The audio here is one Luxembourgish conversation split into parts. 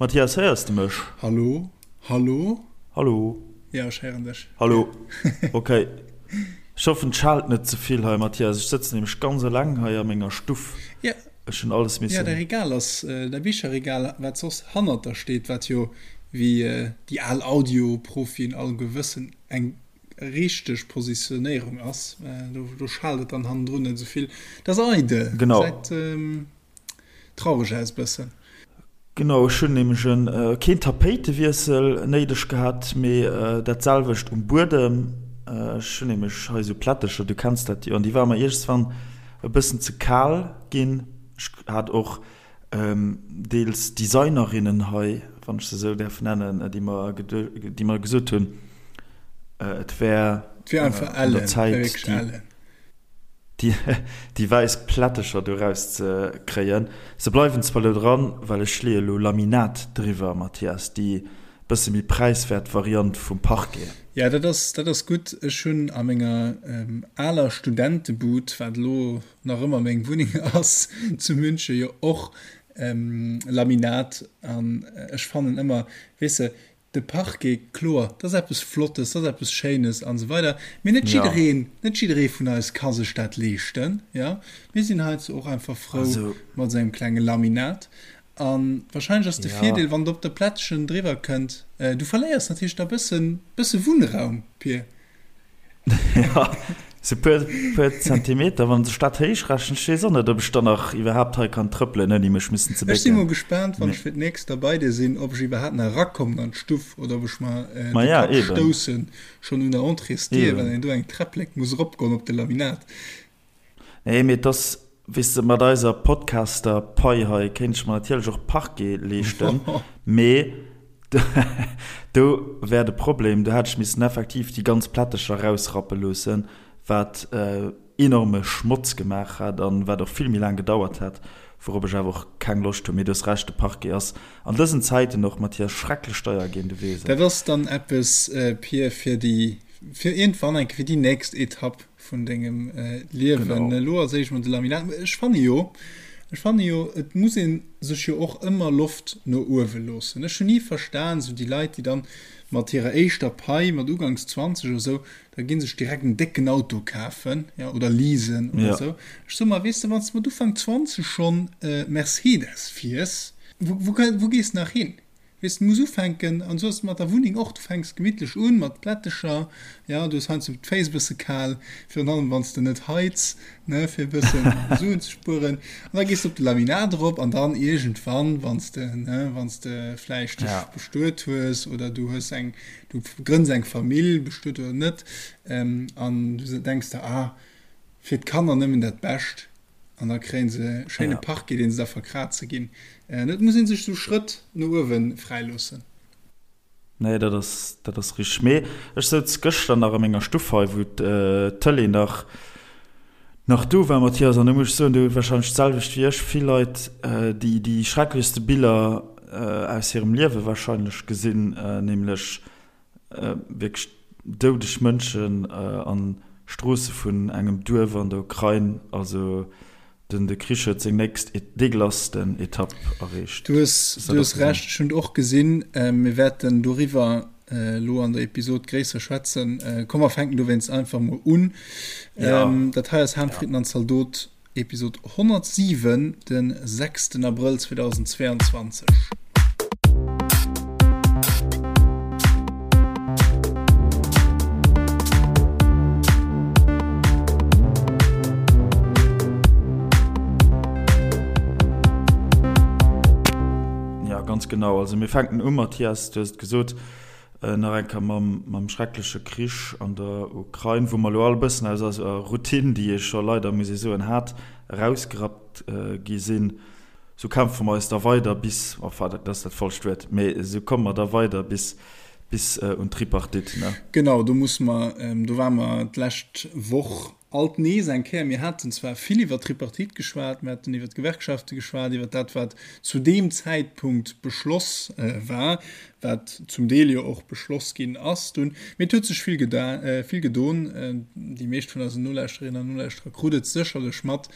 Mathias, héiers de mech? Hallo? Hallo? Hallo? Jo, ech héieren dech. Hallo. Ok. Ech hoffen, et schaalt net ze vill hei, Mathias. Ech sëtzen nämlech ganz eleng hei a menger Stuff. Ja. Ech hunn alles missen. Ja, däi Regal ass, däi Bicherregal, wat soss hannert der steet, wat jo, wéi déi al Audio-Profien alleguer wëssen, eng richteg Positionéierung ass. Do, do schaalt et dann hannendrun net esou vill. Dat ass eidel. Genau. Gesäit traureg aus bëssen. Genau, ech hunn nämlech en keen Tapéitewiessel néideg gehat, mee dat selwecht um Buedem. Ech hunn nämlech hei esou Plättecher, du kenns dat jo, an déi ware mer iergendswann e bëssen ze kal ginn. Ech hat och deels Designerinnen hei, wann ech se esou däerf nennen, déi mer déi mer gesot hunn, et wär un der Zäit, déi. déi wäiss Plättecher do raus ze kréien. Se bleiwen zwar lo dran, well ech leeë lo Laminat driwwer, Mathias, déi bësse méi präiswäert Variant vum Parquet. Jo, dat ass, dat ass gutt. Ech hunn a menger aler Studentebud, wat elo nach ëmmer meng Wunneng ass zu München, jo och Laminat an ech fannen ëmmer, weess de, De Parquet, kloer, dat ass eppes Flottes, dat ass eppes Schéines an esou weider, mee net jiddereen, net jidderee vun eis ka sech dat leeschten, jo. Mir sinn heizou och einfach frou mat esou engem klenge Laminat. A wahrscheinlech ass de Virdeel, wann et op der Plättchen driwwer kënnt, du verléiers natierlech da bëssen, bësse Wunnraum, Pir. Jo, sou puer, puer Zentimeter, wann sech dat héich rechent. Ech weess och net, ob ech dann nach iwwerhaapt hei kann trëppelen, ouni mech missen ze Ech si mol bécken. gespaant, wann ech fir d'nächst da bei dir sinn, ob ech iwwerhaapt nach erakommen an d'Stuff oder ob ech mer de Maja, Kapp eben. stoussen, schonn un der Entréesdier, well Eben. een do eng Träpplek muss eropgoen op de Laminat. Nee, mee et ass, weess de, mat eiser Podcaster-Pai hei kéint ech mer natierlech och Parquet leeschten, mee do wär de Problem, do hätt ech missen effektiv déi ganz Plättecher erausrappe loossen, wat enorme Schmotz gemaach hätt an wat och vill méi laang gedauert hätt, wourop ech awer och keng Loscht hunn. Mee du hues Recht, de Parquet ass an dësen Zäiten och, Mathias, schrecklech deier ginn, du weess et. Dat ass dann eppes, Pir, fir déi, fir iergendwann eng Kéier, fir déi nächst Etapp. vun dengem Liewen. Elo als éischt mol de Laminat. Ech fanne jo, ech fanne jo, et muss ee sech jo och ëmmer Loft no uewe loossen. Ech hunn ni verstan, esou déi Leit, déi dann mat hirer éischter Pai, mat uganks 20 oder esou, da gi sech direkt en décken Auto kafen, jo, oder leasen oder esou. Ech soe mer, weess de, wann s de mat Ufank 20 schonn Mercedes fiers, wou, wou, wou gees de nach hin? Weess, du muss ufänken, an esou ass et mat der Wunneng och, du fänks gemittlech un mat Plättecher, jo, du hues heiansdo d'Féiss e bësse kal, virun allem wann s de net heiz, ne, fir e bëssen Suen ze spueren, an da gees de op de Laminat erop an dann iergendwann, wann s de, ne, wann s de vläicht dech bestuet hues oder du hues eng, du grënns eng Famill, bestuet oder net, an du denks der, ah, fir d'Kanner nëmmen dat Bescht. An da kréien se e schéine Parquet, deen se da verkraze ginn. Et muss ee sech sou Schrëtt no uewe fräi loossen. Nee, dat ass, dat ass richteg. Mee ech souz gëschter nach a menger Stuff hei, wou d'Tëlee nach, nach do war, Mathias, an do muss ech soen, do hu warscheinlech d'selwecht wéi ech vill Leit déi, déi schrecklechste Biller aus hirem Liewe warscheinlech gesinn, nämlech Wierklech doudeg Mënschen an Stroosse vun engem Duerf an der Ukrain. Also den de Krich huet seng nächst degelassten Etapp erreecht. Du hues du hues Recht, ech hunn et och gesinn. Mir wäerten doriwwer elo an der Episod gréisser schwätzen. Komm mer fänken dowéinst einfach mol un. Dat hei ass Ham, Fritten an Zaldot. Episod 107, den 6 Abrëll 2022. Ja, ganz genau. Also mir fänken u, Mathias, du hues et gesot, Nach eng Kéier mam schreckleche Krich an der Ukrain, wou mer elo all e bëssen aus eiser Routine, déi ee scho leider, muss ee soen, hat, erausgerappt gi sinn. Sou kämpfe mer eis da weider bis, enfin, dat ass dat falscht Wuert, mee esou komme mer da weider bis, bis un d'Tripartite, ne? Genau, do musse mer, do ware mer d'lescht Woch. Alt nees eng Kéier, mir haten zwar vill iwwert d'Tripartite geschwat, mir haten iwwert d'Gewerkschafte geschwat, iwwert dat, wat zu deem Zäitpunkt beschloss war, wat zum Deel jo och beschloss ginn ass dunn, mee et huet sech vill vill gedon. Déi meescht vun eisen Nolauschterinnen an Nolauschterer krut et sécherlech mat,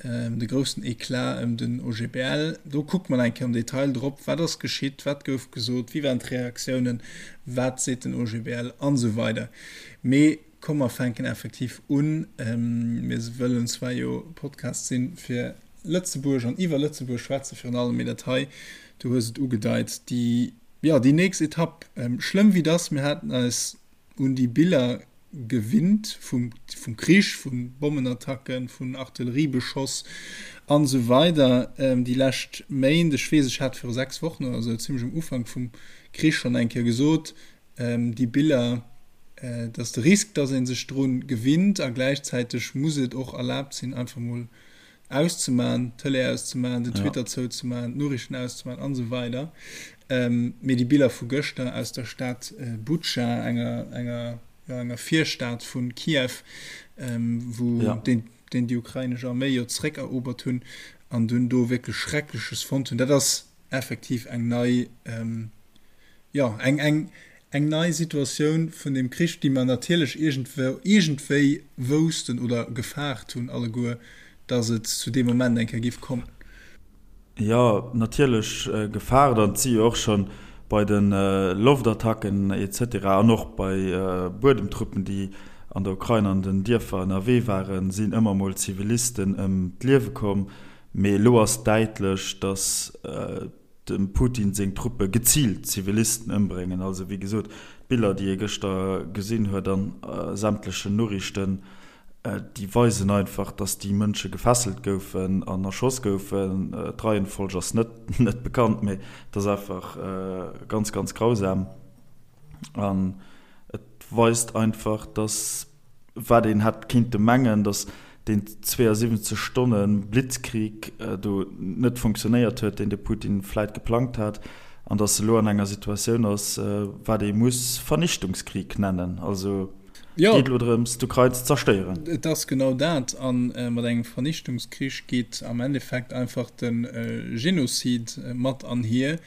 de groussen Eclat ëm den OGBL. Do kuckt mer eng Kéier am Detail drop, wat ass geschitt, wat gouf gesot, wéi waren d'Reaktiounen, wat seet den OGBL an esou weider. Mee Komm mer fänken effektiv un. Mir wëllen zwar jo Podcast sinn fir Lëtzebuerg an iwwer Lëtzebuerg schwätzen virun allem, mee dat hei, du hues et ugedeit, déi, jo, déi nächst Etapp, schlëmm wéi dass, mir haten eis un déi Biller gewinnt vum, vum Krich, vu Bommenattacken, vun Artilleriebeschoss an esou weider déi lescht Méint. Ech weess, ech hat viru 6 Wochen oder esou, zimlech um Ufank vum Krich schonn eng Kéier gesot, déi Biller, et ass de Risk, dass ee sech dru gewinnt a gläichzäiteg muss et och erlaabt sinn, einfach mol auszemaen, d'Tëlee auszemaen, den Twitter zouzemaen, d'Noriichten auszemaen an esou weider. Mee déi Biller vu gëschter aus der Stad Butscha, enger, enger, jo, enger Virstad vu Kiew, wou deen, deen déi ukrainesch Arméi jo zeréckerobert hunn an dunn do wierklech Schreckleches fonnt hunn, dat ass effektiv eng nei, jo, eng, eng, eng nei Situatioun vun deem Krich, déi mer natierlech iergendwou, iergendwéi woussten oder gefaart hunn alleguer, dass et zu deem Moment eng Kéier giff kommen. Jo, natierlech gefaart. An et si jo och scho bei de Loftattacken et cetera an och bei Buedemtruppen, déi an der Ukrain an den Dierfer ënnerwee waren, sinn ëmmer mol Zivilisten ëm d'Liewe komm. Mee elo ass däitlech, dass dem Putin seng Truppe geziilt Zivilisten ëmbréngen. Also wéi gesot, d'Biller, déi ee gëschter gesinn huet an sämtlechen Noriichten, déi weisen einfach, datt déi Mënsche gefesselt goufen an erschoss goufen. D'Reihenfolg ass net net bekannt, mee et ass einfach ganz, ganz grausam. An et weist einfach, datt wat een hätt kinnte mengen, datt deen 72 Stonne Blitzkrieg do net funktionéiert huet, deen de Putin vläit geplangt hat, an datt e lo an enger Situatioun ass, wat ee muss Vernichtungskrieg nennen. Also et geet elo drëms, d'Ukrain ze zerstéieren. Et ass genau dat. A mat engem Vernichtungskrich geet am Endeffekt einfach de Genozid mat anhier.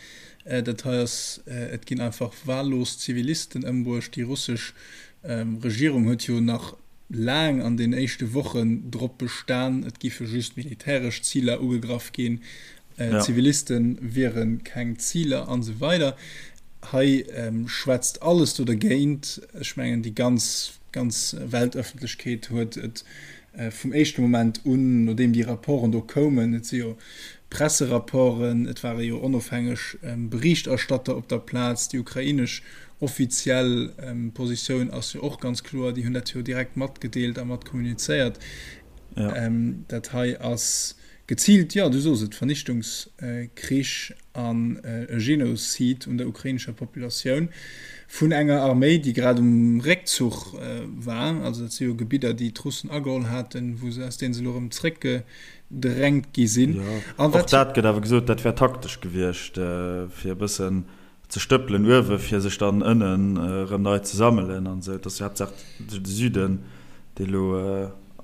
Dat hei ass, et ginn einfach wahllos Zivilisten ëmbruecht. Déi russesch Regierung huet jo nach laang an den éischte Wochen drop bestan, et giffe just militäresch Ziler ugegraff ginn, Ziviliste wiere keng Ziler an esou weider. Hei schwätzt alles do dergéint. Ech mengen, déi ganz, ganz Weltëffentlechkeet huet et vum éischte Moment un, nodeem déi Rapporten do koumen, et si jo Presserapporten, et ware jo onofhängeg Berichterstatter op der Plaz, déi ukrainesch offiziell Positioun ass jo och ganz kloer, déi hunn dat jo direkt matgedeelt a mat kommunizéiert. Dat hei ass geziilt, jo, du sos et, Vernichtungskrich an e Genozid un der ukrainescher Populatioun vun enger Arméi, déi grad um Réckzuch war. Also dat si jo Gebidder, déi d'Russen ageholl haten, wou se, aus deene se elo erëm zréckgedrängt gi sinn. Jo, och dat gëtt awer gesot, dat wär taktesch gewiescht, fir e bëssen ze stëppelen uewe fir sech dann ënnen erëm nei ze sammelen an esou. Et ass jo haaptsaach de Süden, dee lo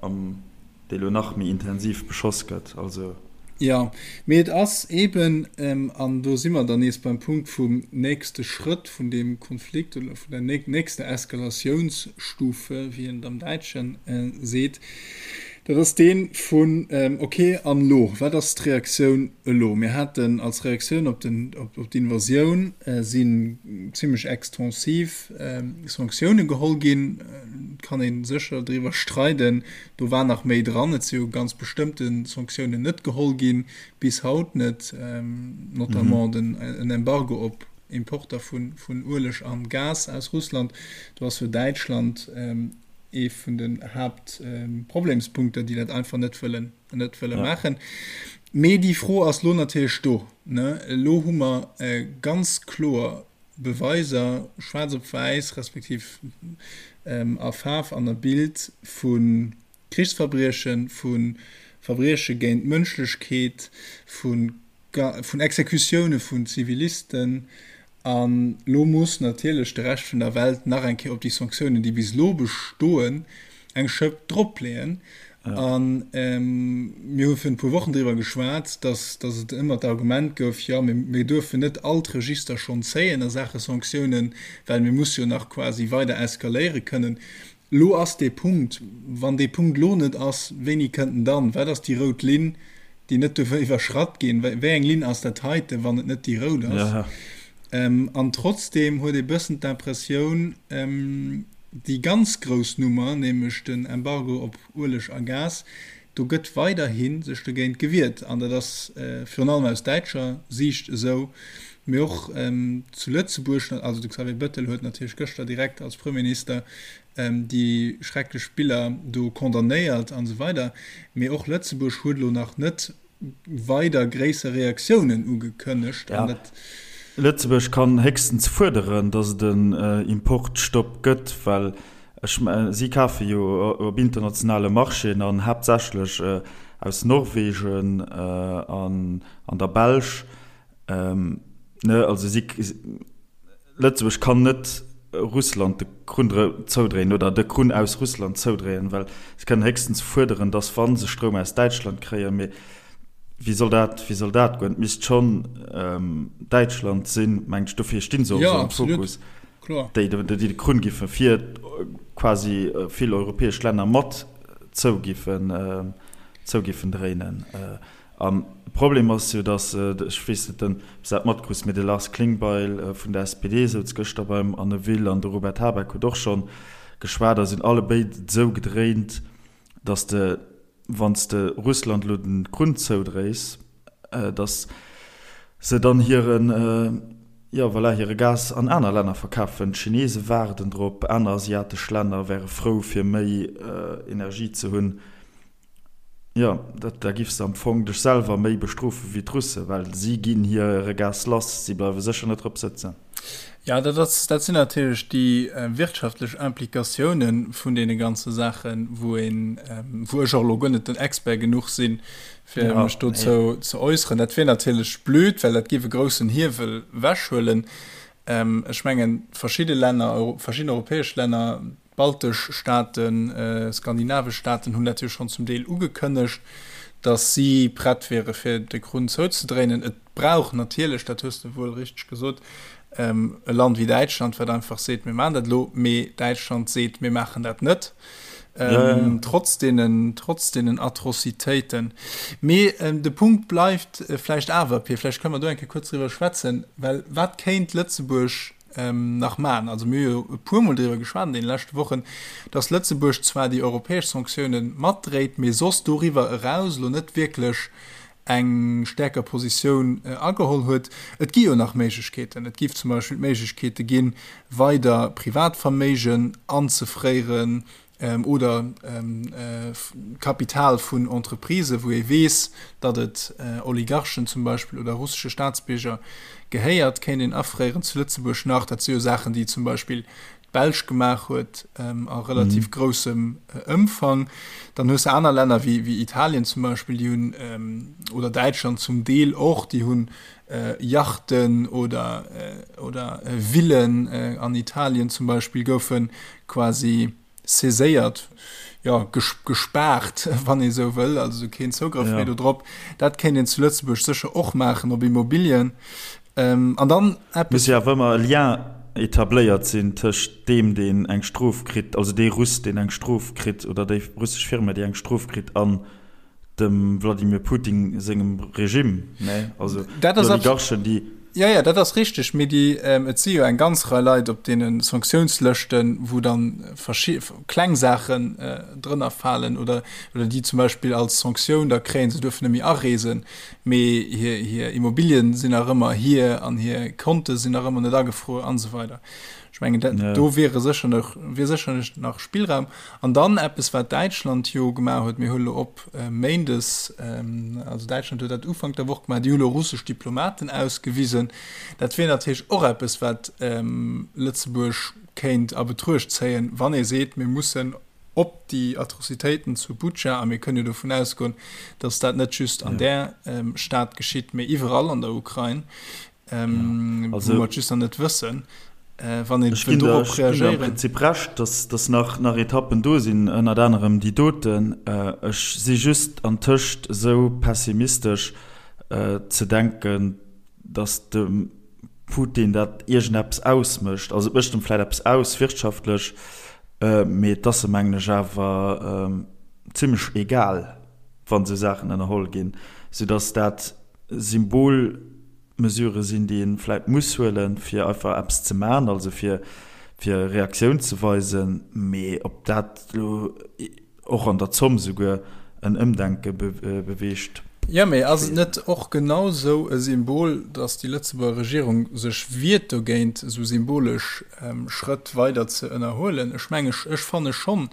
am, dee lo nach méi intensiv beschoss gëtt. Also. Jo, mee et ass eeben, an do si mer dann nees beim Punkt vum nächste Schrëtt vun deem Konflikt oder vun der nächster Eskalatiounsstufe, wéi een et am Däitsche seet, dat ass dee vun, okay, an elo? Wat ass d'Reaktioun elo? Mir haten als Reaktioun op d'Invasioun sinn zimlech extensiv Sanktioune geholl ginn. Et kann ee sécher driwwer streiden, do war nach méi dran. Et si jo ganz bestëmmte Sanktiounen net geholl ginn, bis haut net, notamment den en Embargo op Importer vun Ueleg an Gas aus Russland. Do ass jo Däitschland ee vun den Haaptproblemspunkter, déi dat einfach net wëllen net wëlle maachen. Mee déi Fro ass lo natierlech do. Elo hu mer ganz kloer Beweiser, schwaarz op wäiss, respektiv a Faarf an a Bild, vu Krichsverbriechen, vu Verbrieche géint d'Mënschlechkeet, vu vun Exekutioune vun Zivilisten. An elo muss natierlech de Rescht vun der Welt nach eng Kéier op déi Sanktiounen, déi bis elo bestoen. Eng Schëpp dropleeën. A mir hu virun e puer Wochen driwwer geschwat, datt datt et ëmmer d'Argument gouf, jo, mir mir duerfen net all d'Register schonn zéien a Saache Sanktiounen, well mir musse jo nach quasi weider eskaléiere kënnen. Elo ass dee Punkt. Wann dee Punkt elo net ass, wéini kënnt en dann? Wat ass déi rout Linn, déi net duerf iwwerschratt ginn? Wéi eng Linn ass dat heiten, wann et net déi rout ass? An trotzdeem huet ee bëssen d'Impressioun, Déi ganz grouss Nummer, nämlech den Embargo op Ueleg a Gas, do gëtt weiderhi sech dogéint gewiert. An dat ass virun allem aus däitscher Siicht esou, mee och zu Lëtzebuerg. Also de Xavier Bettel huet natierlech gëschter direkt als Premierminister déi schrecklech Biller do condamnéiert an esou weider. Mee och Lëtzebuerg huet elo nach net weider gréisser Reaktiounen ugekënnegt. Ja, Lëtzebuerg kann héchstens fuerderen, datt et en Importstopp gëtt, well ech, si kafe jo op internationale Marchéen an haaptsächlech aus Norwegen an der Belsch. Ne, also si, Lëtzebuerg kann net Russland de Krunn zoudréien oder de Krunn aus Russland zoudréien, well se kënnen héchstens fuerderen, datt wa se Stroum aus Däitschland kréien, mee wéi soll dat, wéi soll dat goen? Et misst schonn Däitschland sinn, mengt ech, dofir sti se och esou am Fokus, déi de Krunn giffe fir quasi vill europäesch Länner mat zou giffen, zou giffen dréinen. An de Problem ass jo, datt, ech weess net, ob s de dat matkriss, mee de Lars Klingbeil vun der SPD souz gëschter beim Anne Will an de Robert Habeck huet och scho geschwat a sinn allebéid esou gedréint, datt de, wann s de Russland elo de Krunn zoudréis, datt se dann hiren, jo voilà, hire Gas an aner Länner verkafen. D'Chinese waarden drop, aner asiatesch Länner wäre frou fir méi Energie ze hunn. Jo, dat, da giffs de am Fong dech selwer méi bestrofe wéi d'Russe, well si ginn hire Gas lass, si bleiwe sécher net drop sëtzen. Jo, dat ass, dat sinn natierlech déi wirtschaftlech Implikatiounen vun deene ganze Saachen, wou een, wou ech och elo guer net den Expert genuch sinn, fir mech dozou ze äusseren. Dat wier natierlech blöd, well dat géif e groussen Hiewel wechhuelen. Ech mengen, verschidde Länner, verschidden europäesch Länner, D'baltesch Staaten, skandinavesch Staaten hunn dat jo schonn zum Deel ugekënnegt, datt si prett wiere fir de Krunn zouzedréinen. Et brauch natierlech, dat hues de wuel richteg gesot, e Land wéi Däitschland, wat einfach seet, mir maachen dat elo. Mee Däitschland seet, mir maachen dat net, trotz deenen, trotz deenen Atrocitéiten. Mee de Punkt bleift vläicht awer, Pir, vläicht kënne mer do eng Kéier kuerz driwwer schwätzen, well wat kéint Lëtzebuerg nach maachen. Also mir hu jo e puermol driwwer geschwat an deene leschte Wochen, dass Lëtzebuerg zwar déi europäesch Sanktioune matdréit, mee soss doriwwer eraus elo net wierklech eng stäerker Positioun ageholl huet. Et gi jo nach Méiglechkeeten. Et géif zum Beispill d'Méiglechkeete ginn, weider Privatverméigen anzefréieren, oder Kapital vun Entreprisen, wou ee weess, datt et Oligarchen zum Beispill oder russesche Staatsbierger gehéiert, kéint een afréieren zu Lëtzebuerg nach. Dat si jo Saachen, déi zum Beispill d'Belsch gemaach huet a relativ groussem Ëmfang. Dann hues de aner Länner wéi Italien zum Beispill, déi hunn, oder Däitschland zum Deel och, déi hunn Yachten oder oder Villen an Italien zum Beispill goufe quasi saiséiert, jo, gespaart, wann ee sou wëll, also keen Zougrëff méi do drop. Dat kéint een zu Lëtzebuerg sécher och maachen op Immobilien. An dann eppes. Muss jo awer ëmmer e Lien etabléiert sinn tëscht deem, deen eng Strof kritt, also dee Russ, deen eng Strof kritt, oder déi russesch Firma, déi eng Strof kritt, an dem Wladimir Putin sengem Regime, ne? Also déi Oligarchen, déi. Jo, jo, dat ass richteg, mee déi, et si jo eng ganz Rei Leit op deene Sanktiounslëschten, wou dann verschi kleng Saachen drënner falen oder, oder déi zum Beispill als Sanktioun da kréien, se duerfen net méi areesen, mee hir, hir Immobilien sinn nach ëmmer hir an hir Konte sinn nach ëmmer net agefruer an esou weider. Ech mengen, dat, do wiere sécher nach, wier sécherlech nach Spillraum. An dann eppes, wat Däitschland jo gemaach huet, mir huele lo op méindes, also Däitschland huet dat Ufank der Woch gemaach, déi hu lo russesch Diplomaten ausgewisen. Dat wier natierlech och eppes, wat Lëtzebuerg kéint a Betruecht zéien, wann ee seet, mir mussen op déi Atrocitéiten zu Butscha, a mir kënnen jo dovun ausgoen, datt dat net just an där Stad geschitt, mee iwwerall an der Ukrain, wou mer et just nach net wëssen. Wann een Ech ginn der, ech ginn der am Prinzip Recht, dass, dass nach, nach Etappen do sinn, ënnert anerem déi doten. Ech si just antëscht esou pessimistesch ze denken, dass dem Putin dat iergendeppes ausmécht. Also et mécht em vläicht eppes aus wirtschaftlech, mee et ass em, mengen ech, awer zimlech egal, wann esou Saachen ënnerholl ginn, soudass dat Symbol, Mesurë sinn, déi ee vläit muss huelen, fir einfach eppes ze maachen, also fir fir Reaktioun ze weisen. Mee ob dat elo och an der Zomm souguer en Ëmdenke beweegt, Jo, mee ass et net och genau esou e Symbol, datt déi Lëtzebuerger Regierung sech wiert dogéint, esou symbolesch Schrëtt weider ze ënnerhuelen? Ech menge, ech fanne schonn.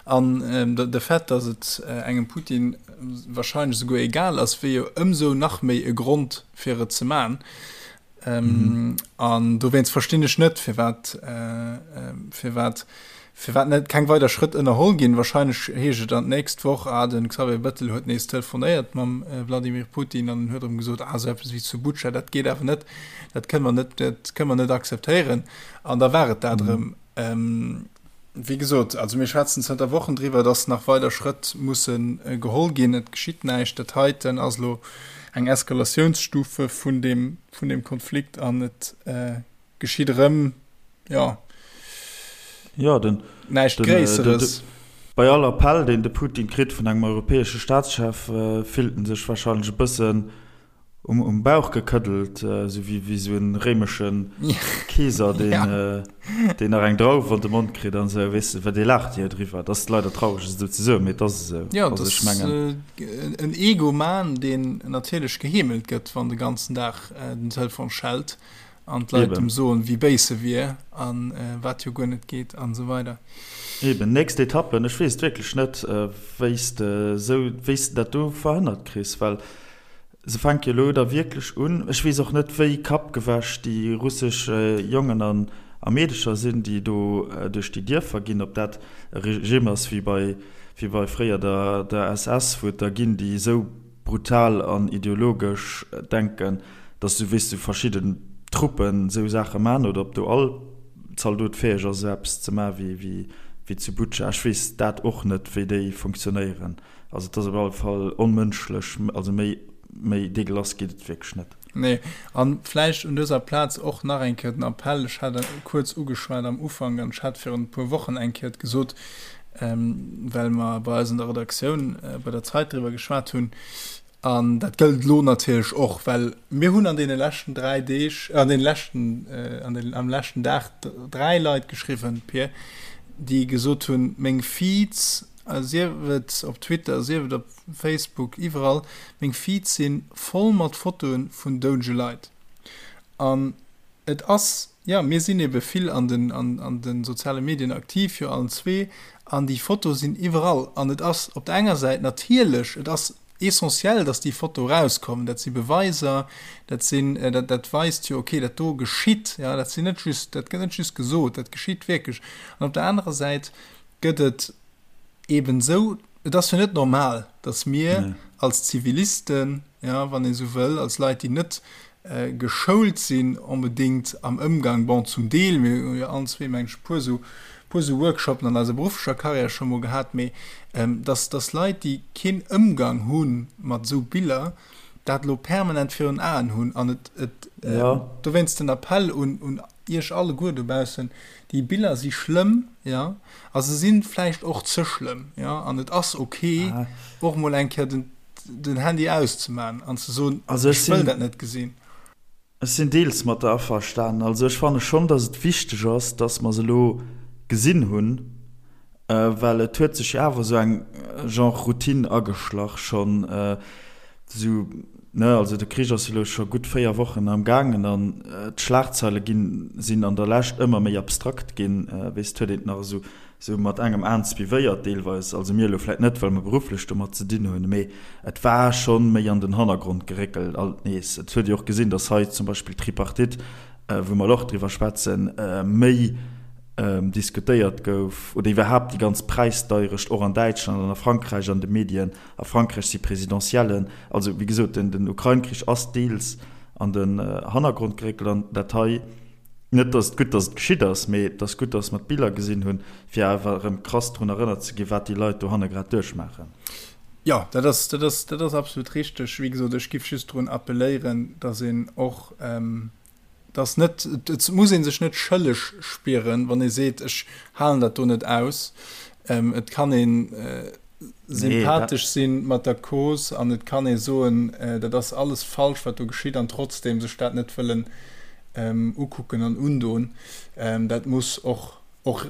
An de Fait, datt et engem Putin wahrscheinlech esouguer egal ass, wier jo ëmsou nach méi e Grond, fir et ze man. Ähm, an dowéinst verstinn ech net, firwat äh, firwat firwat net keng weider Schrëtt ënnerholl ginn. Wahrscheinlech heescht et dann d'nächst Woch, ah, den Xavier Bettel huet nees telefonéiert mam äh, Vladimir Putin an en huet erëm gesot, ah, esou eppes wéi zu Butscha, dat geet awer net, dat kënne mer net, dat kënne mer net akzeptéieren. An da war et dat erëm. Ähm, Wéi gesot, also mir schwätzen zënter Wochen driwwer, dass nach weider Schrëtt musse geholl ginn. Et geschitt näischt. Dat heiten ass elo eng Eskalatiounsstufe vun deem, vun deem Konflikt an et geschitt erëm, jo, Jo, den, näischt den, Gréisseres. Bei all Appell, deen de Putin kritt vun engem europäesche Staatschef, fillt en sech wahrscheinlech e bëssen Um, um Bauch gekëddelt, esou wéi, wéi esou en réimeschen Keeser, deen, ja. deen nach eng Drauf an de Mond kritt an esou, weess de, well dee laacht jo driwwer. Dat ass leider traureg esou ze soen, mee et ass esou. Ja, also, ech mengen. En Egoman, deen natierlech geheemelt gëtt, wann de ganzen Dag den Telefon schellt an d'Leit em soen, wéi béis e wier an wat jo guer net geet an esou weider. Eben, nächst Etappen, ech weess et wierklech net, wéi s de esou, wéi s de dat do verhënnert kriss, well Se fänke jo elo da wierklech un. Ech weess och net, wéi kappgewäsch déi russesch Jongen an a Meedecher sinn, déi do duerch déi Dierfer ginn, ob dat e Regime ass wéi bei wéi bei fréier der der SS, wou et der ginn, déi esou brutal an ideologesch denken, datt esou, weess du, verschidden Truppen esou Saache man, oder ob do all Zaldot fäeg ass, esou eppes ze man wéi wéi zu Butscha. Ech weess dat och net, wéi déi funktionéieren. Also et ass op alle Fall onmënschlech, also méi, méi dégueulasse geet et wierklech net. Nee, an vläicht un dëser Plaz och nach eng Kéier den Appell, ech hat e kuerz ugeschwat am Ufank an ech hat virun e puer Wochen eng Kéier et gesot, well mer bei eis an der Redaktioun bei der Zeit driwwer geschwat hunn, an dat gëllt elo natierlech och, well mir hunn an deene leschten 3 Deeg, an deene leschten, an den, am leschten Dag 3 Leit geschriwwen, Pir, déi gesot hunn, meng Feeds, Sief et op Twitter, sief et op Facebook, iwwerall, meng Feeds si voll mat Fotoe vun doudege Leit. An et ass, jo, mir sinn ebe vill an den, an de soziale Medien aktiv, jo allen zwee, an déi Fotoe sinn iwwerall. An et ass op der enger Säit natierlech, et ass essentiell, datt déi Fotoe erauskommen, dat si Beweiser, dat sinn, dat, dat weist jo, okay, dat do geschitt, jo, dat sinn net just, dat gëtt net just gesot, dat geschitt wierklech. An op der anerer Säit gëtt et eben esou, et ass jo net normal, datt mir nee. als Zivilisten, ja, wann ee sou wëll, als Leit, déi net äh, geschoult sinn onbedéngt am Ëmgang, bon, zum Deel, mir hu jo allen zwee, meng ech, puer sou, puer sou Workshopen an eiser berufflecher Karriär scho mol gehat, mee ähm, datt, datt Leit, déi keen Ëmgang hu mat esou Biller, dat elo permanent virun Aen hunn an et, et äh, ja. dowéinst den Appell un, un Iech alleguer dobaussen, déi Biller si schlëmm, jo, a se si vläicht och ze schlëmm, jo, an et ass ok, och mol eng Kéier den, den Handy auszemaachen an ze soen, ech wëll dat net gesinn. Ech sinn deels mat der averstanen. Also ech fanne schonn, datt et wichteg ass, datt mer se elo gesinn hunn, Well et huet sech jo awer esou eng Genre Routine ageschlach schonn esou, ne? Also de Krich ass jo elo scho gutt 4 Wochen am gaangen an d'Schlagzeile ginn, sinn an der Lescht ëmmer méi abstrakt ginn. Weess, et huet een et nach esou esou mat engem Aen suivéiert deelweis, also mir elo vläit net, well mer berufflech domat ze dinn hunn, mee et war schonn méi an den Hannergrond geréckelt alt nees. Et huet ee och gesinn, datt hei zum Beispill d'Tripartite, wou mer elo och driwwer schwätzen, méi diskutéiert gouf, oder iwwerhaapt déi ganz Präisdeierecht och an Däitschland an a Frankräich an de Medien. A Frankräich si Presidentiellen. Also, wéi gesot, den Ukrain-Krich ass deels an den Hannergrond geréckelt an dat hei. Net, dass et gutt, dass et geschitt ass, mee et ass gutt, dass mer d'Biller gesinn hunn, fir awer erëm krass drun erënnert ze ginn, wat déi Leit dohanne grad duerchmaachen. Jo, dat ass, dat ass, dat ass absolut richteg. Wéi gesot, ech giff just drun appelléieren, dass een och, dass net, et muss ee sech net schëlleg spieren, wann ee seet, ech halen dat do net aus. Et kann een sympathesch sinn mat der Cause an et kann ee soen, dat ass alles falsch, wat do geschitt, an trotzdem sech dat net wëllen ukucken an undoen. Dat muss och och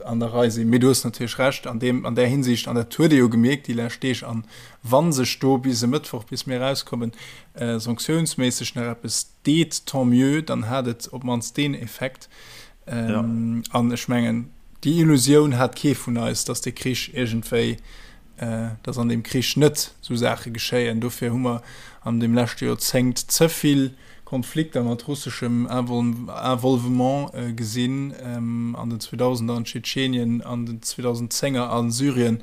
an der Rei sinn. Mee du hues natierlech Recht an deem, an där Hinsicht, an dat huet ee jo gemierkt déi lescht Deeg, an wa sech do bis e Mëttwoch, bis mir erauskommen, sanktiounsméisseg nach eppes deet, tant mieux, dann hat et op d'mannst deen Effekt. An ech mengen, déi Illusioun hat kee vun eis, datt dee Krich iergendwéi, datt an deem Krich net esou Saache geschéien. Dofir hu mer an deem leschte Joerzéngt ze vill Konflikter mat russeschem Involvement gesinn, an den Zweedausender an Tschetschenien, an den Zweedausendzénger a Syrien.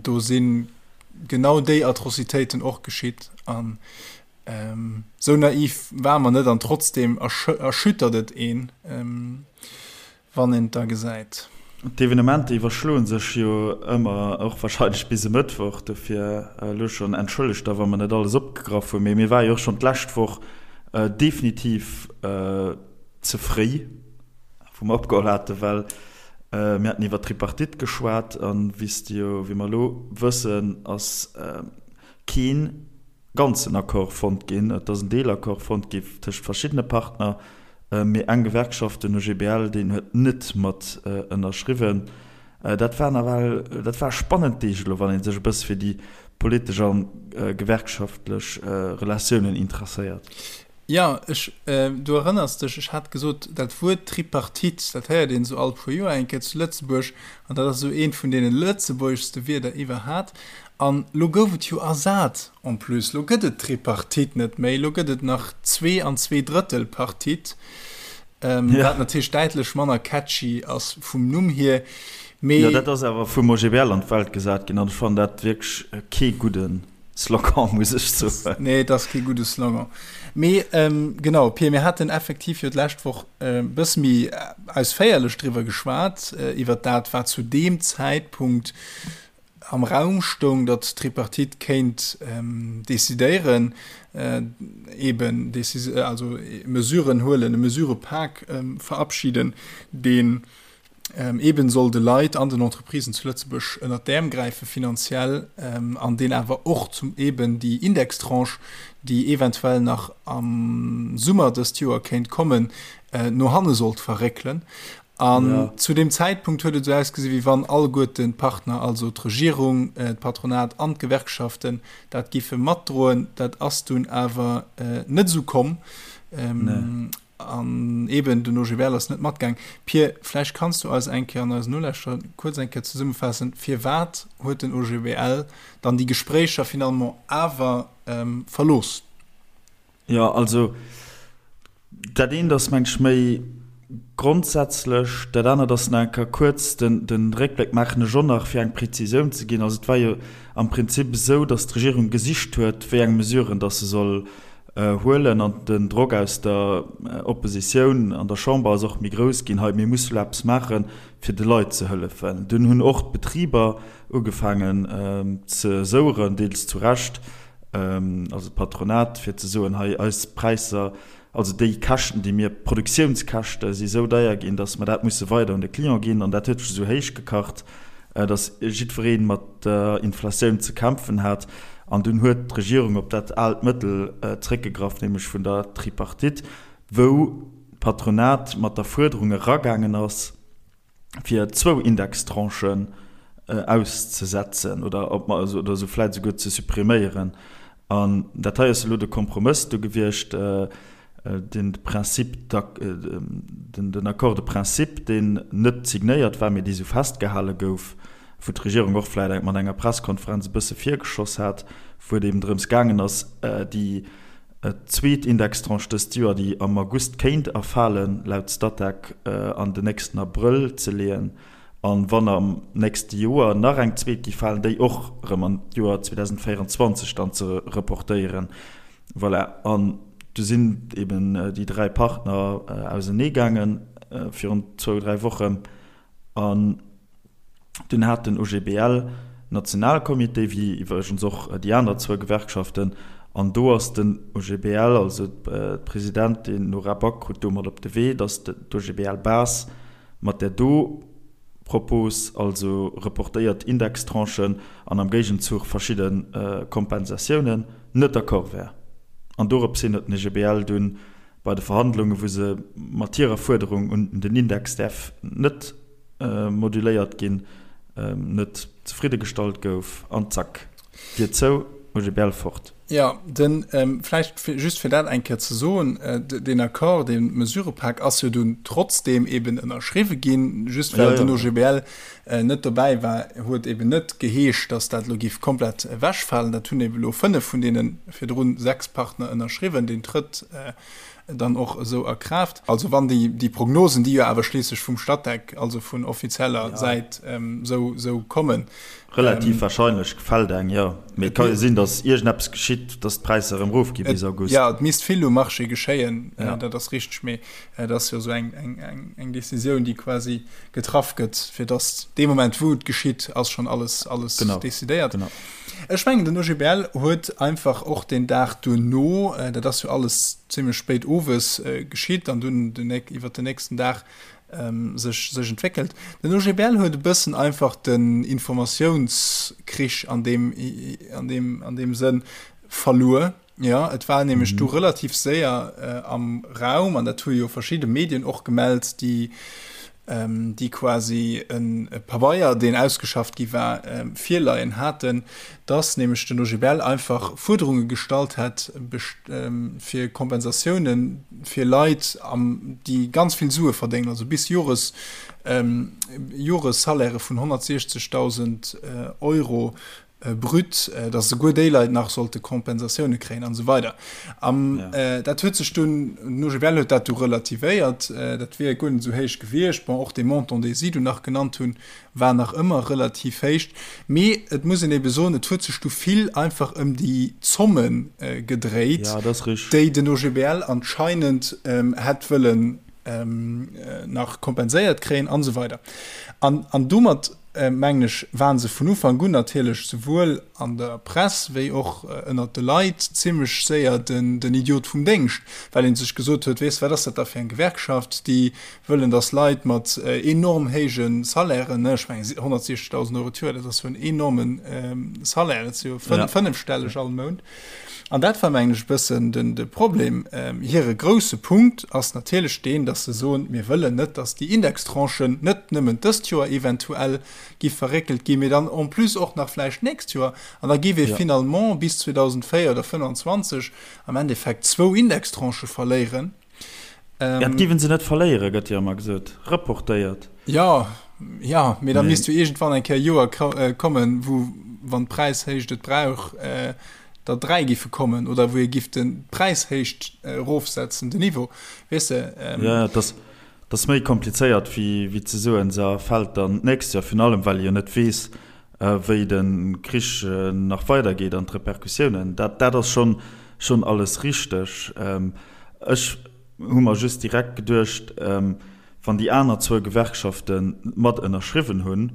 Do si genau déi Atrocitéiten och geschitt. An Sou naiv ware mer net an trotzdem erschüttert et een, wann een et da gesäit. D'Evenementer iwwerschloe sech jo ëmmer, och warscheinlech bis e Mëttwoch. Dofir elo schonn entschëllegt da wa mer net alles opgegraff hunn. Mee mir ware jo och schonn d'lescht Woch definitiv ze fréi, wou mer opgeholl haten, well mir haten iwwer d'Tripartite geschwat. An wéi s de jo, wéi mer elo wëssen, ass keen ganzen Accord fonnt ginn. Et ass en Deelaccord fonnt gi tëscht verschiddene Partner, mee eng Gewerkschaft, den OGBL, deen huet net mat ënnerschriwwen. Dat war nawell, dat war spannend Deeg elo, wann ee sech e bësse fir déi politesch a gewerkschaftlech Relatiounen interesséiert. Jo, ech, du erënners dech, ech hat gesot, dat Wuert Tripartite, dat héiert een esou all puer Joer eng Kéier zu Lëtzebuerg, an dat ass esou eent vun deene lëtzebuergeschste Wierder iwwerhat. An lo gouf et jo ersat en plus, lo gëtt et d'Tripartite net méi, lo gëtt et nach Zwee an Zweedrëttelpartite, wat natierlech däitlech manner catchy ass vum Numm hier, mee. Jo, dat ass awer vum OGBL an d'Welt gesat ginn, an ech fannen dat wierklech kee gudden. Slogan, muss ech soen. Nee, et ass kee gudde Slogan. Mee genau, Pir, mir haten effektiv jo d'lescht Woch e bësse méi ausféierlech driwwer geschwat, iwwer dat, wat zu deem Zäitpunkt am Raum stoung, datt d'Tripartite kéint decidéieren, eeben also Mesuren huelen, e Mesurëpak verabschiden, deen Eben soll de Leit an den Entreprisen zu Lëtzebuerg ënnert d'Äerm gräife finanziell an deen awer och zum eben déi Indextranche, déi eventuell nach am Summer dëst Joer kéint kommen, no hanne sollt verréckelen. An zu deem Zäitpunkt huet et esou ausgesi wéi wann alleguerten d'Partner, also d'Regierung, d'Patronat an d'Gewerkschaften, dat giffe matdroen. Dat ass dunn awer net esou komm. An eben, den OGBL ass net matgaang. Pir, vläicht kanns du eis eng Kéier an eisen Nolauschterer kuerz eng Kéier zesummefaassen, firwat huet den OGBL dann déi Gespréicher finalement awer verlooss? Jo, also dat eent ass, meng ech, méi grondsätzlech, dat anert ass nach eng Kéier kuerz de Réckbléck maachen ech och nach, fir eng Prezisioun ze ginn. Also et war jo am Prinzip esou, datt d'Regierung gesicht huet, wéi eng Mesuren datt se soll huelen an den Drock aus der Oppositioun an der Chamber ass och méi grouss ginn, hei mir musse lo eppes maachen, fir de Leit ze hëllefen. Dunn hunn och d'Betriber ugefaangen ze soueren, deels zu Recht, also d'Patronat, fir ze soen, hei eis Präisser, also déi Käschten, déi mir, d'Produktiounskäschte si sou deier ginn, datt mer dat musse weider un de Client ginn. An dat huet sech esou héich gekacht, datt jiddweree mat der Inflatioun ze kämpfen hat. An dunn huet d'Regierung op dat aalt Mëttel zréckgegraff, nämlech vun der Tripartite, wou d'Patronat mat der Fuerderung eragaangen ass, fir zwou Indextranchen auszesetzen oder oder se vläicht esouguer ze suppriméieren. An dat hei ass elo de Kompromëss do gewiescht, den Principe, den Accord de principe, deen net signéiert war, mee dee sou festgehale gouf, wou d'Regierung och vläicht mat enger Presskonferenz e bësse virgeschoss hat, wou et eben drëms gaangen ass, déi zweet Indextranche dëst Joer, déi am August kéint erfalen, laut Statec, an den nächsten Abrëll ze leeën, an wann am nächste Joer nach eng zweet géif falen, déi och erëm an d'Joer 2024 dann ze reportéieren. Voilà. An. Du sinn eben déi 3 Partner ausenee gaange virun zwou, 3 Wochen an dunn hat den OGBL Nationalcomité, wéi iwwregens och déi aner zwou Gewerkschaften, an do ass den OGBL, also d'Presidentin Nora Back krut do mat op de Wee, datt d'OGBL-Base mat där do Propos, also reportéiert Indextranchen an am Géigenzuch verschidde Kompensatiounen, net d'accord wär. An dorops hin huet den OGBL dunn bei de Verhandlungen, wou se mat hirer Fuerderung un den Index däerf net moduléiert ginn, net zefridde gestallt gouf an zack, Dier zou, OGBL fort. Jo, den, vläicht just fir dat eng Kéier ze soen, deen Accord, dee Mesurëpak ass jo dunn trotzdeem eben ënnerschriwwe ginn, just well den OGBL net dobäi war, huet eben net geheescht, datt dat elo géif komplett ewechfalen. Dat hunn eben elo 5 vun deene virdrun 6 Partner ënnerschriwwen. Deen trëtt dann och esou a Kraaft. Also wann déi, déi Prognosen, déi jo awer schliisslech vum Statec, also vun offizieller Säit esou, esou kommen. Relativ wahrscheinlech fält eng, jo. Mee et ka jo sinn, datt iergendeppes geschitt, datt d'Präisser erëm erofgi bis August. Jo, et misst vill um Marché geschéien, dat ass richteg. Mee et ass jo esou eng, eng, eng, eng Decisioun, déi quasi getraff gëtt, fir datt dee Moment, wou et geschitt, ass schonn alles, alles decidéiert. Genau. Ech mengen, den OGBL huet einfach och deen Dag duerno, dat ass jo alles zimlech spéit owes geschitt an dunn iwwert den nächsten Dag sech sech entwéckelt, den OGBL huet e bëssen einfach den Informatiounskrich an deem an deem an deem Sënn verluer. Jo, et war nämlech du relativ séier am Raum, an dat hu jo verschidde Medien och gemellt, déi, déi quasi e Pabeier, deen ausgeschafft gi war, virleien haten, dass nämlech den OGBL einfach Fuerderunge gestallt hätt fir Kompensatioune fir Leit, déi ganz vill Sue verdéngen, also bis Jores, Joressalairë vun 160.000 Euro brut, dass esouguer déi Leit nach sollte Kompensatioune kréien an esou weider. An dat huet sech dunn, den OGBL huet dat du relativéiert, dat wier guer net esou héich gewiescht. Bon, och dee Montant, dee si du nach genannt hunn, war nach ëmmer relativ héich. Mee et muss een ebe soen, et huet sech du vill einfach ëm déi Zomme gedréit, déi den OGBL anscheinend hätt wëllen nach kompenséiert kréien an esou weider. An domat mengen ech, waren se vun Ufank un natierlech souwuel an der Press wéi och ënnert de Leit zimlech séier den Idiot vum Déngscht, well ee sech gesot huet, Weess, wat ass dat da fir eng Gewerkschaft, déi wëllen, datt Leit mat enorm héije Salairen, ech mengen 160.000 Euro d'Joer, dat ass jo en enorme Salaire, dat ass jo fënnefstelleg all Mount. An dat war, mengen ech, e bëssen de Problem. Hire grousse Punkt ass natierlech deen, datt se soen, Mir wëllen net, datt déi Indextranchen net nëmmen dëst Joer eventuell giff verréckelt ginn, mee dann en plus och nach vläicht d'nächst Joer. An da giff ee finalement bis 2024 oder 2025 am Endeffekt zwou Indextranchë verléieren. Ja, dat giffen se net verléieren, gëtt jo ëmmer gesot, reportéiert. Jo, jo, mee da misst jo iergendwann eng Kéier e Joer kommen, wou, wann d'Präishéicht et brauch, der 3 giffe kommen oder wou ee giff de d'Präishéicht erofsetzen, den Niveau, weess de. Jo, jo, dat ass méi komplizéiert wéi wéi ze soen, se erfält dann d'nächst Joer, virun allem well ee jo net weess, wéi de Krich nach weidergeet an d'Repercussiounen. Dat dat ass schonn schonn alles richteg. Ech hu mer just direkt geduecht, wann déi aner zwou Gewerkschafte mat ënnerschriwwen hunn,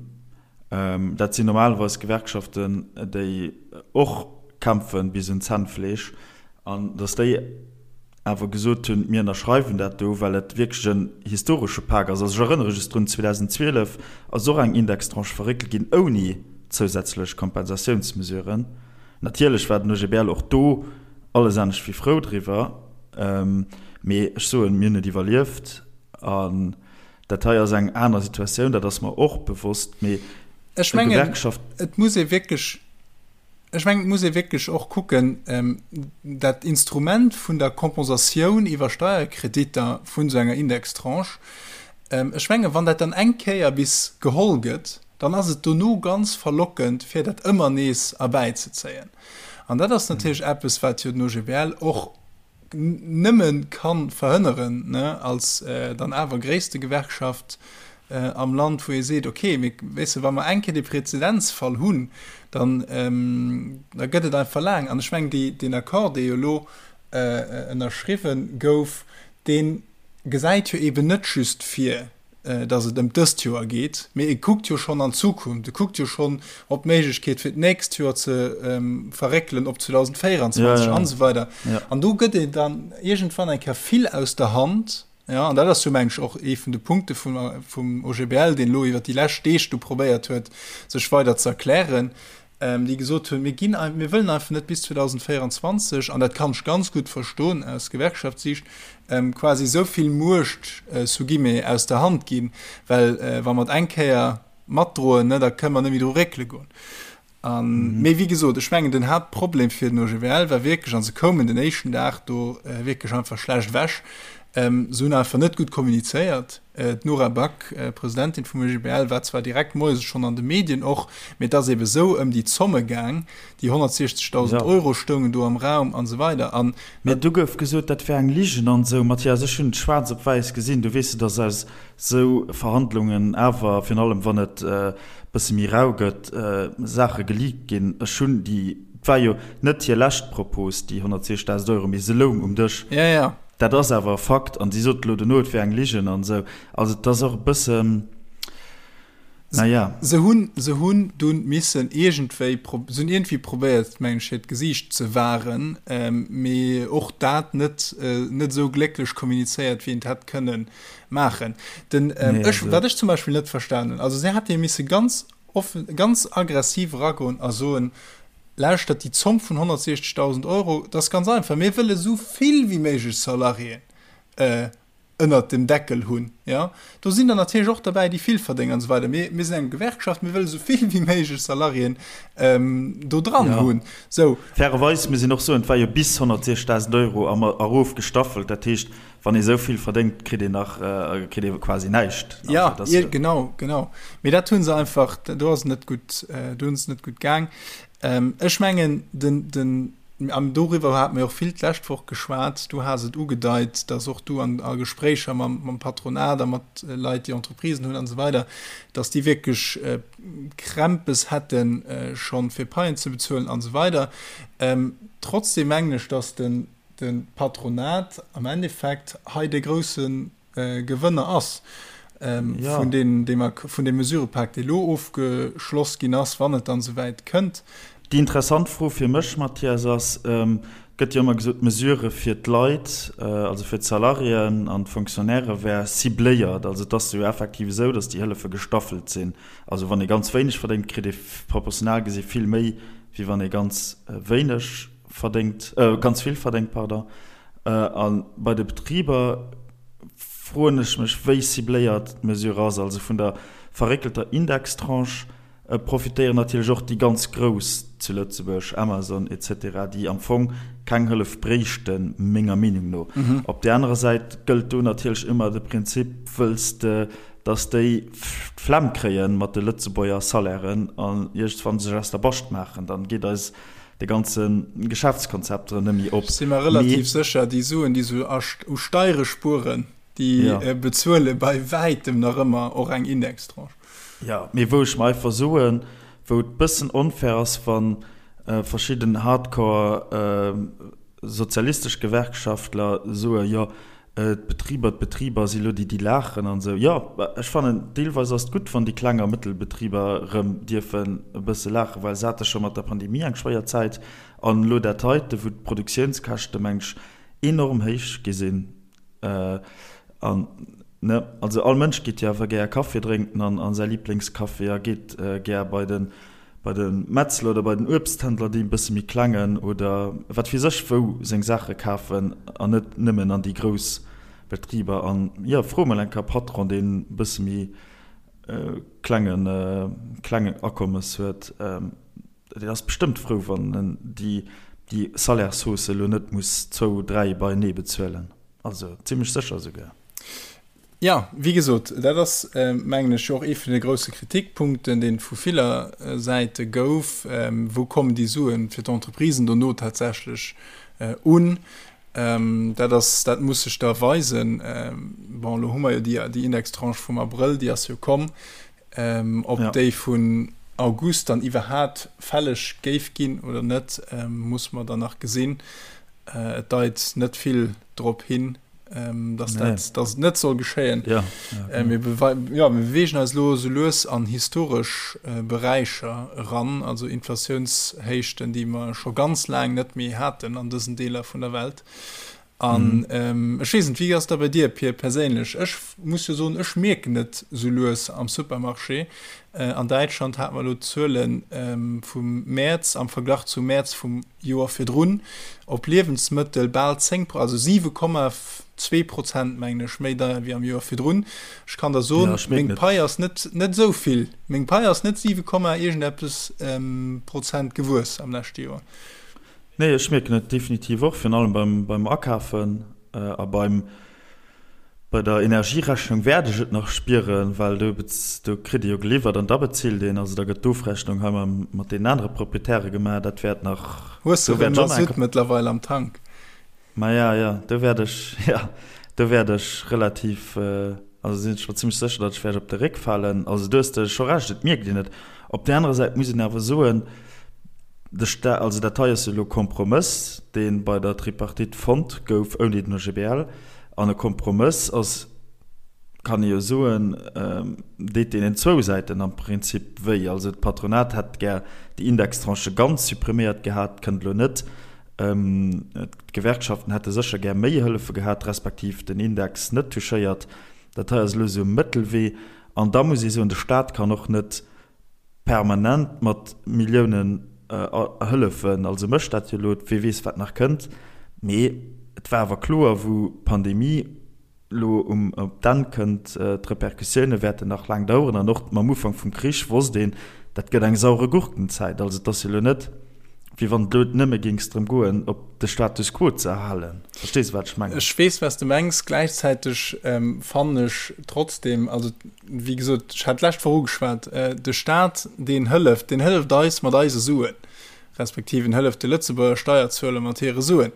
dat sinn normalerweis Gewerkschaften, déi och kämpfe bis un d'Zännfleesch, an datt déi awer gesot hunn, mir ënnerschreiwen dat do, well et wierklech en historesche Pak ass. Also ech erënnere just drun, 2012 ass och eng Indextranche verréckelt ginn ouni zousätzlech Kompensatiounsmesuren. Natierlech war den OGBL och do alles anescht wéi frou driwwer, mee ech soen, mir hunn et iwwerlieft an dat hei ass eng aner Situatioun, dat ass mer och bewosst, mee Ech mengen, Gewerkschaft. Et muss ee wierklech, ech mengen, et muss ee wierklech och kucken, dat Instrument vun der Kompensatioun iwwer Steierkreditter vun esou enger Indextranche, ech mengen, wann dat dann eng Kéier bis geholl gëtt, dann ass et dono ganz verlockend, fir dat ëmmer nees erbäizezéien. An dat ass natierlech eppes, wat jo den OGBL och nëmme ka verhënneren, ne, als dann awer gréisste Gewerkschaft am Land, wou ee seet, okay, mee weess de, wa mer eng Kéier dee Präzedenzfall hunn, dann, da gëtt et einfach laang. An ech mengen, déi, deen Accord, dee jo elo. ënnerschriwwen gouf, dee gesäit jo eeben net just vir, datt et ëm dëst Joer geet, mee e kuckt jo schonn an d'Zukunft, e kuckt jo schonn op d'Méiglechkeet fir d'nächst Joer ze verréckelen op 2024 an esou weider. An do gëtt een dann iergendwann eng Kéier vill aus der Hand. Jo, an dat ass jo, mengen ech, och ee vun de Punkte vum, vum OGBL, deen elo iwwert déi lescht Deeg do probéiert huet, sech weider ze erklären, déi gesot hunn, Mir ginn, mir wëllen einfach net bis 2024, an dat kann ech ganz gutt verstoen aus Gewerkschaftssicht, quasi esou vill Muecht, sous guillemets, aus der Hand ginn, well wa mer et eng Kéier matdroen, ne, da kënne mer net méi dru réckele goen. An, mee wéi gesot, ech mengen, den Haaptproblem fir den OGBL war wierklech, a se koumen den éischten Dag do wierklech einfach schlecht ewech, se hunn einfach net gutt kommunizéiert. D'Nora Back, Presidentin vum OGBL, war zwar direkt moies schonn an de Medien och, mee et ass ebe sou ëm déi Zomme gaang, déi 160.000 Euro stoungen do am Raum an esou weider. An. Mee du gouf gesot, dat wär eng Ligen an esou. Mathias, ech hunn et schwaarz op wäiss gesinn, du weess, et ass aus sou Verhandlungen awer, virun allem wann et e bësse méi rau gëtt, Saache geleakt ginn. Ech hunn déi, et war jo net hir lescht Propos, déi 160.000 Euro, mee se loung um Dësch. Ja, ja. Dat ass awer e Fakt. An si sot elo dono, et wär eng Ligen an esou. Also et ass och e bëssen, na ja. Se hunn, se hunn dunn missen iergendwéi, se hunn iergendwéi probéiert, mengen ech, hiert Gesiicht ze wahren, mee och dat net, net esou glécklech kommunizéiert, wéi een et hätt kënnen maachen. Den, ähm, nee, ech, wat ech zum Beispill net verstanen, also se hätte misse ganz offen, ganz aggressiv ragoen a soen, lauschtert déi Zomm vun 160.000 Euro, das ganz einfach, mir wëlle sou vill wéi méiglech Salariéen äh, ënnert dem Deckel hunn. Ja? Do sinn der natierlech och derbäi, déi vill verdéngen an esou weider. Mir, mir sinn eng Gewerkschaft, mir wëlle sou vill wéi méiglech Salariéen ähm, do dran ja. hunn. So. Fairerweis muss een och soen, et war jo bis 160.000 Euro erofgestaffelt, dat heescht, Wann ee sou vill verdéngt, kritt een nach, kritt ee quasi näischt. Ja, genau, genau. Mee dat hu se einfach, do ass et net gutt, do hunn se net gutt gaang. Ech mengen, den, den, an doriwwer hate mir och vill d'lescht Woch geschwat, du has et ugedeit, datt och du an a Gespréicher mam, mam Patronat a mat Leit, déi Entreprisen hunn an esou weider, datt déi wierklech Krämpes hätte schonn, fir Paien ze bezuelen an esou weider. Trotzdem mengen ech, datt den, de Patronat am Endeffekt hei de grousse Gewënner ass vun deem, vun deem Mesurëpak, dee elo ofgeschloss ginn ass, wann et dann esouwäit kënnt. Déi interessant Fro fir mech, Mathias, ass, Et gëtt jo ëmmer gesot, d'Mesurë fir d'Leit, also fir d'Salariéen an d'Fonctionnairë wär cibléiert. Also et ass jo effektiv esou, datt déi Hëllefe gestaffelt sinn. Also wann ee ganz wéineg verdéngt, kritt ee proportional gesi vill méi, wéi wann ee ganz wéineg verdéngt, ganz vill verdéngt, pardon. A bei de Betriber froen ech mech, wéi cibléiert d'Mesure ass. Also vun der verréckelter Indextranche profitéieren natierlech och déi ganz Grouss zu Lëtzebuerg, Amazon et cetera, déi am Fong keng Hëllef bréichten, menger Meenung no. Op där anerer Säit gëllt do natierlech ëmmer de Prinzip, wëlls de, datt déi d'Flemm kréien mat de Lëtzebuerger Salairen an iergendwann sech aus der Bascht maachen, dann geet eis de ganze Geschäftskonzept erëm net méi op. Si mer relativ sécher, déi Suen, déi se u Steiere spueren, déi bezuele bei wäitem nach ëmmer och eng Indextranche. Jo, mee wou ech mer einfach soen, wou et bëssen onfair ass, wa verschidden hardcore sozialistesch Gewerkschaftler soe jo, D'Betriber, d'Betriber si lo déi, déi laachen an esou. Jo, ech fannen, deelweis ass et gutt, wann déi kleng a mëttel Betriber erëm dierfen e bësse laachen, well se hate scho mat der Pandemie eng schwéier Zäit. An elo dat heite, wou d'Produktiounskäschte, meng ech, enorm héich gi sinn. An, ne, also all Mënsch geet jo awer gär Kaffi drénken an a säi Liblingscafé a geet gär bei de bei de Metzler oder bei den Uebsthändler, dee bësse méi klengen oder wat weess ech wou seng Saache kafen an net nëmmen an déi grouss Betriber. An jo, fro mol eng Kéier e Patron, deen e bësse méi klengen klengen Akommes huet, deen ass bestëmmt frou, wann en déi déi Salairshausse elo net muss zwou, dräi beienee bezuelen. Also zimmlech sécher esouguer. Jo, wéi gesot, dat ass, mengen ech, jo och ee vun de grousse Kritikpunkten, dee vu viller Säite gouf, Wou kommen déi Sue fir d'Entreprisen dono tatsächlech un? Dat ass, dat muss sech da weisen. Bon, elo hu mer jo déi, déi Indextranche vum Abrëll, déi ass jo komm. Ob déi vun August dann iwwerhaapt fälleg géif ginn oder net, muss mer dann nach gesinn. Et deit net vill drop hin, dass dat, dass et net soll geschéien. Ja, ja, mir, ja, mir bewegen eis elo esou lues an historesch Beräicher eran, also Inflatiounshéichten, déi mer scho ganz laang net méi haten an dësen Deeler vun der Welt. An ech weess net, wéi ass dat bei dir, Pir, perséinlech? Ech muss jo soen, ech mierken et esou lues am Supermarché. An Däitschland hate mer elo d'Zuele vum Mäerz am Verglach zum Mäerz vum Joer virdrun op Liewensmëttel bal 10, also 7,2 Prozent, mengen ech, méi deier wéi am Joer virdrun. Ech kann der soen, meng Pai ass net net esou vill, meng Pai ass net 7, iergendeppes Prozent gewuess am leschte Joer. Nee, ech mierken et definitiv och, virun allem beim beim Akafen a beim bei der Energierechnung wäert ech et nach spieren, well do do kritt ee jo geliwwert an da bezilt een. Also da gëtt d'Ofrechnung hei mam mat deenen anere Proprietäre gemaach. Dat wäert nach, Hues de do wäert erëm ech och nach Masutt mëttlerweil am Tank? Maja, jo, do wäert ech, jo, do wäert ech relativ, also sinn ech mer zimmlech sécher, datt ech wäert op de Réck falen. Also do hues de scho Recht, et mierkt een et. Op där anerer Säit muss een awer soen, de Sta-, also dat hei ass jo elo e Kompromëss, dee bei der Tripartite fonnt gouf ouni den OGBL. An e Kompromëss ass, kann ee jo soen, deet deenen zwou Säiten am Prinzip wéi. Also d'Patronat hätt gär déi Indextranchë ganz suppriméiert gehat, kënnt elo net. D'Gewerkschaften hätte sécher gär méi Hëllefe gehat, respektiv den Index net touchéiert. Dat hei ass elo esou e Mëttelwee. An da muss ee soen, de Staat kann och net permanent mat Milliounen hëllefen. Also mécht dat jo elo, wie weess wat nach kënnt. Mee et war awer kloer, wou d'Pandemie elo um op d'Enn kënnt, d'Repercussioune wäerten nach laang daueren. An och mam Ufank vum Krich wosst een, dat gëtt eng saure Gurkenzäit. Also et ass jo elo net, wéi wann et elo nëmme géings drëm goen, op de Status quo ze erhalen. Verstees de, wat ech mengen? Ech weess, wat s de mengs. Gläichzäiteg fannen ech trotzdem, also wéi gesot, ech hat d'lescht Woch ugeschwat, de Staat, deen hëlleft, deen hëlleft eis mat eise Suen, respektiv en hëlleft de Lëtzebuerger Steierzueler mat hire Suen.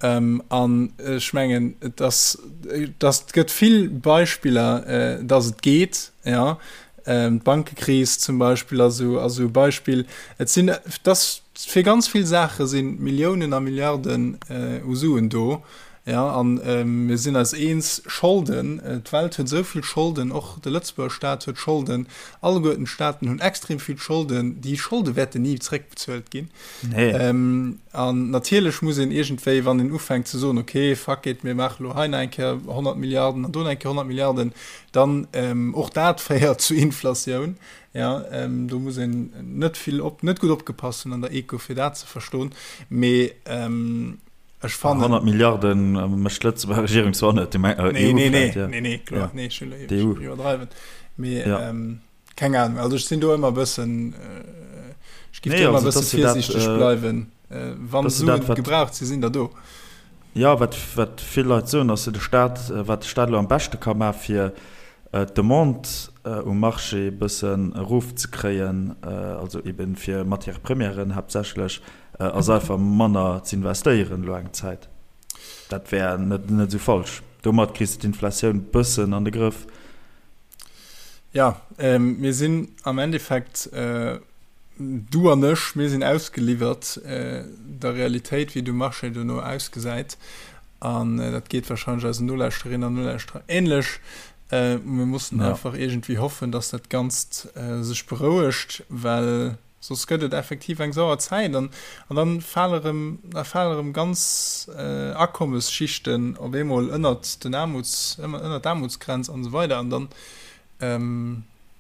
An ech mengen, et ass, et ass, et gëtt vill Beispiller, dass et geet, jo. D'Bankekris zum Beispill ass esou, ass esou e Beispill. Et sinn, et ass fir ganz vill Saache si Milliounen a Milliarden u Suen do, jo. An mir sinn eis eens, Scholden, d'Welt huet esou vill Scholden, och de Lëtzebuerger Staat huet Scholden, alleguerten d'Staaten hunn extrem vill Scholden. Déi Scholde wäerten ni zréckbezuelt ginn. Nee. An natierlech muss een iergendwéi, wann een ufänkt ze soen, okay, fuck it, mir maache lo hei nach eng Kéier 100 Milliarden an do nach eng Kéier 100 Milliarden, dann och dat féiert zu Inflatioun. Jo, do muss een net vill op, net gutt opgepasst hunn an der Eco, fir dat ze verstoen. Mee ech fannen. 100 Milliarde mécht d'Lëtzebuerger Regierung zwar net, EU vläicht, jo. Nee, nee, nee, kloer, nee, ech iwwerdreiwen. Mee. Keng Ahnung, also ech sinn do ëmmer e bëssen, ech giff do ëmmer e bësse virsiichteg bleiwen. Wann Suen gebraucht sinn, sinn der do. Jo, wat wat vill Leit soen, ass jo de Staat, wat de Staat elo am beschte ka maachen, fir d'Demande um Marché e bëssen erofzekréien, also eeben fir Matières premièren haaptsächlech, ass einfach manner z'investéieren elo eng Zäit. Dat wär net net esou falsch. Domat kriss de d'Inflatioun bëssen an de Grëff. Ja, ähm, mir sinn am Endeffekt, äh, du an ech, mir sinn ausgeliwwert äh, der Realitéit, wéi de Marché dono ausgesäit. An äh, dat geet wahrscheinlech eisen Nolauschterinnen an Nolauschterer ähnlech. Äh, mir mussen ja. einfach irgendwie hoffen, dass dat Ganzt äh, sech berouegt, well Soss gëtt et effektiv eng sauer Zäit an an dann fale rëm, da fale rëm ganz Akommesschichten op eemol ënnert den Aarmuts, ënnert d'Aarmutsgrenz an esou weider an dann,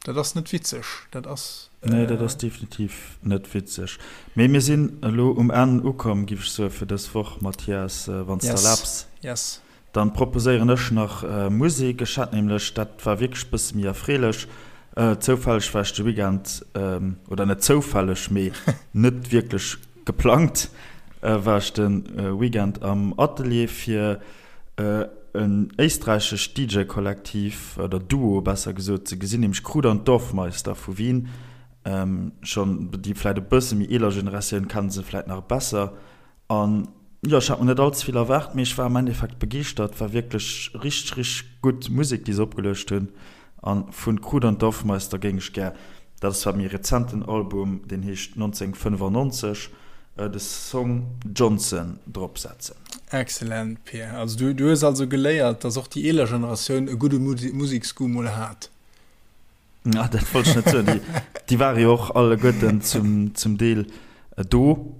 dat ass net witzeg, dat ass. Nee, dat ass definitiv net witzeg. Mee mir sinn elo um Enn ukomm, giff ech soe fir dës Woch, Mathias, wann s de erlaabs. Yes. Dann proposéieren ech nach Musek. Ech hat nämlech, dat war wierklech bësse méi erfreelech, zoufälleg war ech de Weekend, oder net zoufälleg, mee net wierklech geplangt, war ech de Weekend am Atelier fir en éisträichescht DJ-Kollektiv, oder Duo besser gesot, ze gesinn, nämlech Kruder und Dorfmeister vu Wien. Schonn déi vläit e bësse méi eeler Generatioun kenne se vläit nach besser. An jo, ech hat mer net all ze vill erwaart, mee ech war am Endeffekt begeeschtert. War wierklech richteg, richteg gutt Musek, déi se opgeluecht hunn. An vun Kruder und Dorfmeister géing ech gär, dat ass zwar méi rezenten Album, deen heescht 1995. De Song Johnson drop setzen. Excellent, Pir. Also du, du hues also geléiert, dass och déi eeler Generatioun e gudde Museksgoût mol hat. Ah, dat wollt ech net soen. Déi, déi ware jo och alleguerten zum, zum Deel do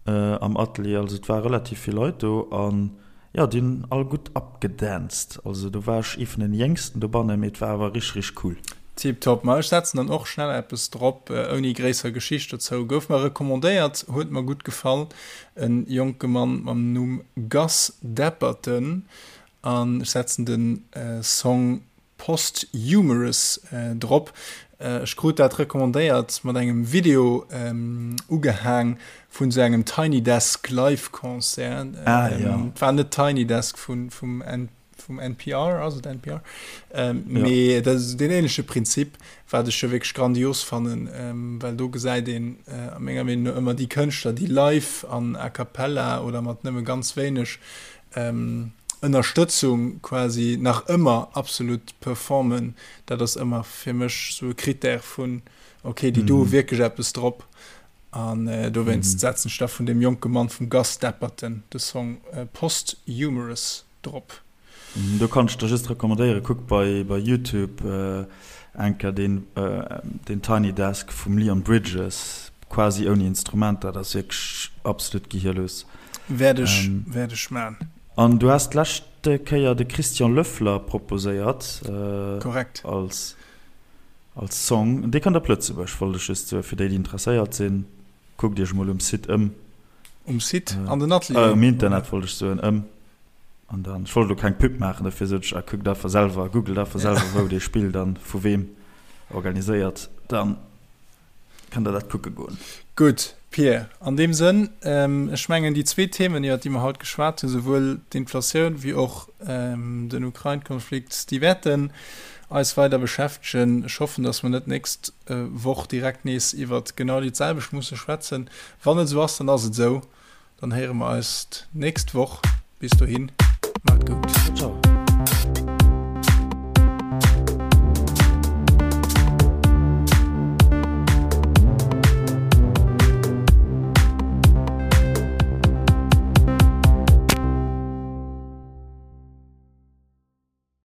am Atelier. Also et ware relativ vill Leit do an jo, déi hunn all gutt abgedanzt. Also do war ech ee vun den Jéngsten dobannen, mee et war awer richteg, richteg cool. Tiptop. Ma ech setzen dann och schnell eppes drop, ouni gréisser Geschicht dozou. Gouf mer recommandéiert, huet mer gutt gefall. En jonke Mann mam Numm Gus Dapperton an ech setzen den Song Posthumous drop. Ech krut dat recommandéiert mat engem Video ugehaang vun sou engem Tiny Desk Live Concert. Ah, ja. Et war net Tiny Desk vun vum vum NPR, ass et NPR? Mee dat ass deen ähnleche Prinzip, wat ech jo wierklech grandios fannen, well do gesäit een a menger Meenung no ëmmer déi Kënschtler, déi live an a cappella oder mat nëmme ganz wéineg Ënnerstëtzung quasi nach ëmmer absolut performen. Dat ass ëmmer fir mech sou e Critère vun, ok, déi do hu wierklech eppes drop. An dowéinst setzen ech da vun deem jonke Mann vum Gus Dapperton de Song Posthumous drop. Do kann ech der just recommandéieren, kuck bei bei Youtube enker deen deen Tiny Desk vum Leon Bridges, quasi ouni Instrumenter, dat ass wierklech absolut gehirlos. Wäert ech wäert ech man. An du has d'lescht Kéier de Christian Löffler proposéiert. Korrekt. Als als Song. Dee kënnt op Lëtzebuerg, wollt ech just soen, fir déi déi interesséiert sinn, kuckt iech mol um Site ëm. Um Site? An den Atelieren? Um Internet wollt ech soen, ëm. An dann, ech wollt elo keng Pub maachen, dofir sot ech, ah, kuckt einfach selwer, googelt einfach selwer, wou dee spillt an vu weem organiséiert, dann kënnt der dat kucke goen. Gutt, Pir, an deem Sënn, ech mengen, déi zwee Themen, iwwert déi mer haut geschwat hunn, souwuel d'Inflatioun wéi och den Ukrain-Konflikt, déi wäerten eis weider beschäftegen. Ech hoffen, datt mer net d'nächst Woch direkt nees iwwert genau déi selwecht musse schwätzen. Wann et esou ass, dann ass et esou. Dann héiere mer eis d'nächst Woch. Bis dohin, maacht et gutt.